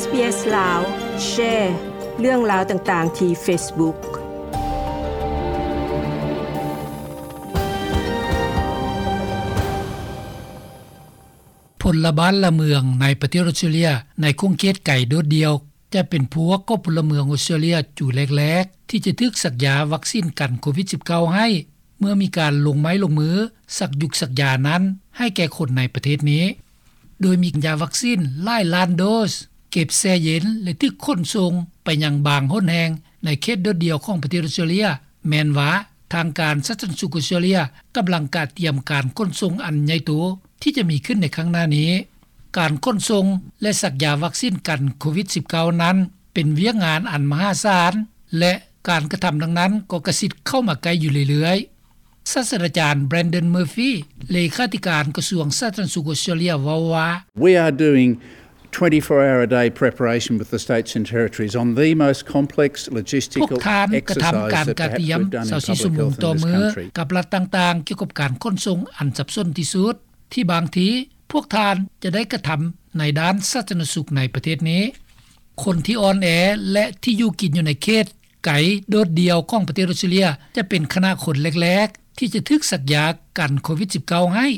SBS ລາວ ແຊເລື່ອງລາວຕ່າງໆ ທີ່ Facebook. ພົນລະບ້ານລະເມືອງໃນປະເທດອອສເຕຣເລຍ ໃນຂົງເຂດໄກໂດດດ່ຽວ ຈະເປັນພວກຂອງພົນລະເມືອງອອສເຕຣເລຍ ຈູ່ແລກໆ ທີ່ຈະຖືກສັກຢາວັກຊີນກັນໂຄວິດສິບເກົ້າໃຫ້ ເມື່ອມີການລົງໄມ້ລົງມື ສັກຢຸກສັກຢານັ້ນ ໃຫ້ແກ່ຄົນໃນປະເທດນີ້. ໂດຍມີຢາວັກຊີນຫຼາຍລ້ານໂດສ ເກັບແຊ່ເຢັນ ແລະ ຖືກຂົນສົ່ງໄປຍັງບາງຫົນແຫ່ງ ໃນເຂດໂດດດ່ຽວຂອງປະເທດອອສເຕຣເລຍ. ແມ່ນວ່າທາງການສາທາລະນະສຸກອອສເຕຣເລຍ ກຳລັງກະກຽມການຂົນສົ່ງອັນໃຫຍ່ໂຕ ທີ່ຈະມີຂຶ້ນໃນຂ້າງໜ້ານີ້. ການຂົນສົ່ງ ແລະ ສັກຢາວັກຊີນກັນໂຄວິດສິບເກົ້ານັ້ນ ເປັນວຽກງານອັນມະຫາສານ ແລະ ການກະທຳດັ່ງນັ້ນກໍກະຊິດເຂົ້າມາໃກ້ຢູ່ເລື້ອຍໆ. ສາດສະດາຈານ Brendan Murphy ເລຂາທິການກະຊວງສາທາລະນະສຸກອອສເຕຣເລຍ ເວົ້າວ່າ We are doing twenty-four hour a day preparation with the states and territories on the most complex logistical exercise that perhaps we've done in public health in this country. ພວກທ່ານກະທຳການກະກຽມຊາວສີ່ຊົ່ວໂມງຕໍ່ມື້ ກັບລັດຕ່າງໆ ກ່ຽວກັບການຂົນສົ່ງອັນສັບສົນທີ່ສຸດ ທີ່ບາງທີພວກທ່ານຈະໄດ້ກະທຳໃນດ້ານສາທາລະນະສຸກໃນປະເທດນີ້. ຄົນທີ່ອ່ອນແອ ແລະ ທີ່ຢູ່ກິນຢູ່ໃນເຂດໄກໂດດດ່ຽວຂອງປະເທດອອສເຕຣເລຍ ຈະເປັນຄະນະຄົນແລກໆ ທີ່ຈະຖືກສັກຢາກັນໂຄວິດສິບເກົ້າໃຫ້.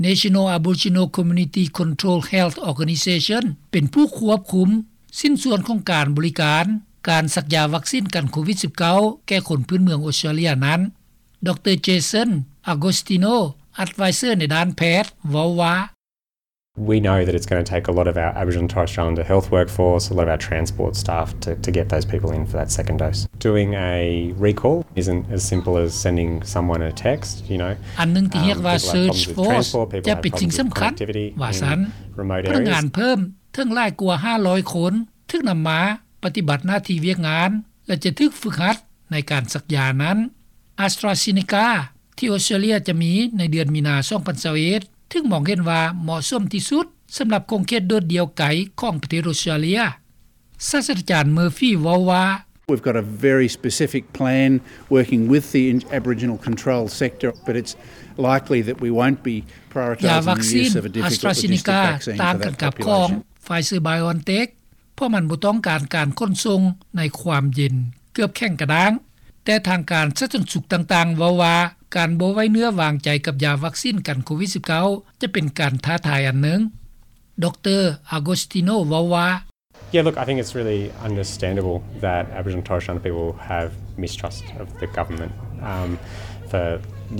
National Aboriginal Community Control Health Organisation ເປັນຜູ້ຄວບຄຸມຊິ້ນສ່ວນຂອງການບໍລິການ ການສັກຢາວັກຊີນກັນໂຄວິດສິບເກົ້າ ແກ່ຄົນພື້ນເມືອງອອສເຕຣເລຍນັ້ນ. ດຣ. Jason Agostino, advisor ໃນດ້ານແພດ ເວົ້າວ່າ We know that it's gonna take a lot of our Aboriginal and Torres Strait Islander health workforce, a lot of our transport staff to, to get those people in for that second dose. Doing a recall isn't as simple as sending someone a text, you know. ອັນໜຶ່ງທີ່ຮຽກວ່າ Search Force ຈະເປັນສິ່ງສຳຄັນ ວ່າຊັ້ນ. ພະນັກງານເພີ່ມເຖິງຫຼາຍກວ່າຫ້າຮ້ອຍຄົນ ຖືກນຳມາປະຕິບັດໜ້າທີ່ວຽກງານ ແລະ ຈະຖືກຝຶກຫັດໃນການສັກຢານັ້ນ. AstraZeneca ທີ່ອອສເຕຣເລຍຈະມີໃນເດືອນມີນາ ສອງພັນຊາວເອັດ ຖືກມອງເຫັນວ່າເໝາະສົມທີ່ສຸດ ສຳລັບຂົງເຂດໂດດດ່ຽວໄກຂອງປະເທດອອສເຕຣເລຍ. ສາດສະດາຈານ Murphy ເວົ້າວ່າ We've got a very specific plan working with the Aboriginal control sector, but it's likely that we won't be prioritising the use of a difficult logistic vaccine for that population. ຢາວັກຊີນ AstraZeneca ຕ່າງກັນກັບຂອງ Pfizer-BioNTech ເພາະມັນບໍ່ຕ້ອງການການຂົນສົ່ງໃນຄວາມເຢັນເກືອບແຂງກະດ້າງ. ແຕ່ທາງການສາທາລະນະສຸກຕ່າງໆ ເວົ້າວ່າການບໍ່ໄວ້ເນື້ອວາງໃຈກັບຢາວັກຊີນກັນໂຄວິດສິບເກົ້າ ຈະເປັນການທ້າທາຍອັນໜຶ່ງ. ດຣ. Agostino ເວົ້າວ່າ Yeah, look, I think it's really understandable that Aboriginal and Torres Strait Islander people have mistrust of the government, um, for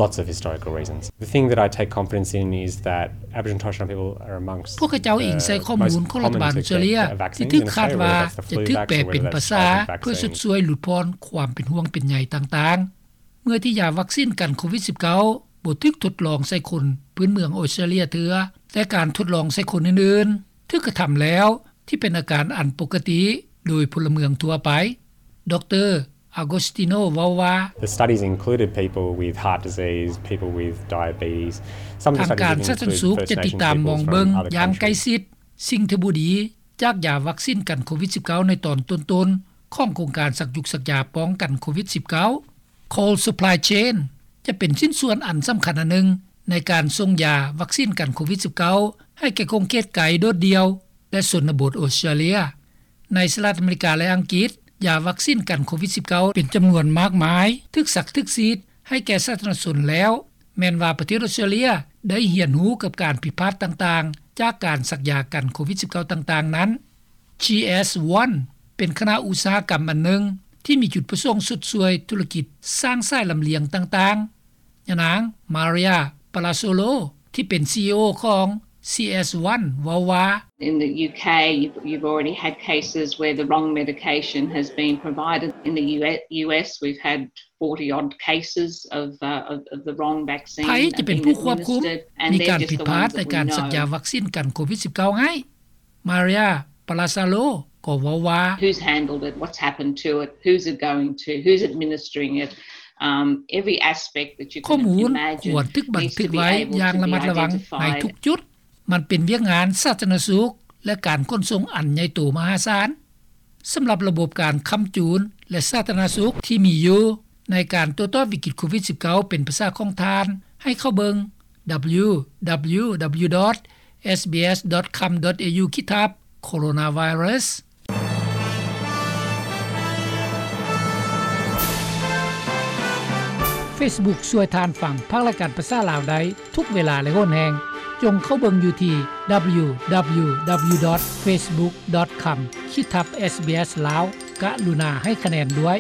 lots of historical reasons. The thing that I take confidence in is that Aboriginal and Torres Strait Islander people are amongst ພວກເຂົາເຈົ້າອີງໃສ່ຂໍ້ມູນຂອງລັດຖະບານອອສເຕຣເລຍ ທີ່ຖືກຄາດວ່າຈະຖືກແປເປັນພາສາເພື່ອຊົດຊ່ວຍຫຼຸດຜ່ອນຄວາມເປັນຫ່ວງເປັນໃຍຕ່າງໆ ເມື່ອທີ່ຢາວັກຊີນກັນໂຄວິດສິບເກົ້າ ບໍ່ຖືກທົດລອງໃສ່ຄົນພື້ນເມືອງອອສເຕຣເລຍເທື່ອ, ແຕ່ການທົດລອງໃສ່ຄົນອື່ນໆ ຖືກກະທຳແລ້ວ ທີ່ເປັນອາການອັນປົກກະຕິໂດຍພົນລະເມືອງທົ່ວໄປ. ດຣ. Agostino ເວົ້າວ່າ The studies included people with heart disease, people with diabetes. ທາງການສາທາລະນະສຸກຈະຕິດຕາມມອງເບິ່ງຢ່າງໃກ້ຊິດ ສິ່ງທີ່ບໍ່ດີຈາກຢາວັກຊີນກັນໂຄວິດສິບເກົ້າ ໃນຕອນຕົ້ນໆ ຂອງໂຄງການສັກຢຸກສັກຢາປ້ອງກັນໂຄວິດສິບເກົ້າ. Cold Supply Chain ຈະເປັນຊິ້ນສ່ວນອັນສຳຄັນອັນໜຶ່ງ ໃນການສົ່ງຢາວັກຊີນກັນໂຄວິດສິບເກົ້າ ໃຫ້ແກ່ຂົງເຂດໄກໂດດດ່ຽວ ແລະ ຊົນນະບົດອອສເຕຣເລຍ. ໃນສະຫະລັດອາເມລິກາ ແລະ ອັງກິດ, ຢາວັກຊີນກັນໂຄວິດສິບເກົ້າ ເປັນຈຳນວນມາກມາຍ ຖືກສັກຖືກສີດໃຫ້ແກ່ສາທາລະນະຊົນແລ້ວ, ແມ່ນວ່າປະເທດອອສເຕຣເລຍໄດ້ຮຽນຮູ້ກັບການຜິດພາດຕ່າງໆ ຈາກການສັກຢາກັນໂຄວິດສິບເກົ້າ ຕ່າງໆນັ້ນ. GS One ເປັນຄະນະອຸດສາຫະກຳອັນໜຶ່ງ ທີ່ມີຈຸດປະສົງຊົດຊ່ວຍທຸລະກິດສ້າງສາຍລຳລຽງຕ່າງໆ. ຍານາງ Maria Palazzolo ທີ່ເປັນ CEO ຂອງ CS One ເວົ້າວ່າ In the UK, you've, you've already had cases where the wrong medication has been provided. In the US, we've had forty odd cases of, uh, of, of the wrong vaccine being administered, and they're just the ones that we know. ໄທຈະເປັນຜູ້ຄວບຄຸມ ມີການຜິດພາດໃນການສັກຢາວັກຊີນກັນໂຄວິດສິບເກົ້າ ໃຫ້. Maria Palazzolo ກໍເວົ້າວ່າ Who's handled it? What's happened to it? Who's it going to? Who's administering it? Um, every aspect that you can imagine needs to be able to be identified. ຂໍ້ມູນຄວນຖືກບັນທຶກໄວ້ຢ່າງລະມັດລະວັງໃນທຸກຈຸດ. ມັນເປັນວຽກງານສາທາລະນະສຸກ ແລະ ການຂົນສົ່ງອັນໃຫຍ່ໂຕມະຫາສານ. ສຳລັບລະບົບການຄ້ຳຈູນ ແລະ ສາທາລະນະສຸກທີ່ມີຢູ່ ໃນການໂຕ້ຕອບວິກິດໂຄວິດສິບເກົ້າ ເປັນພາສາຂອງທ່ານ ໃຫ້ເຂົ້າເບິ່ງ www.sbs.com.au ຂີດທັບ ໂຄໂຣນາໄວຣັສ. Facebook ຊ່ວຍທ່ານຟັງພາກລາຍການພາສາລາວໄດ້ທຸກເວລາ ແລະ ຫົນແຮ່ງ. ຈົ່ງເຂົ້າເບິ່ງຢູ່ທີ່ www.facebook.com/sbslao ກະລຸນາໃຫ້ຄະແນນດ້ວຍ.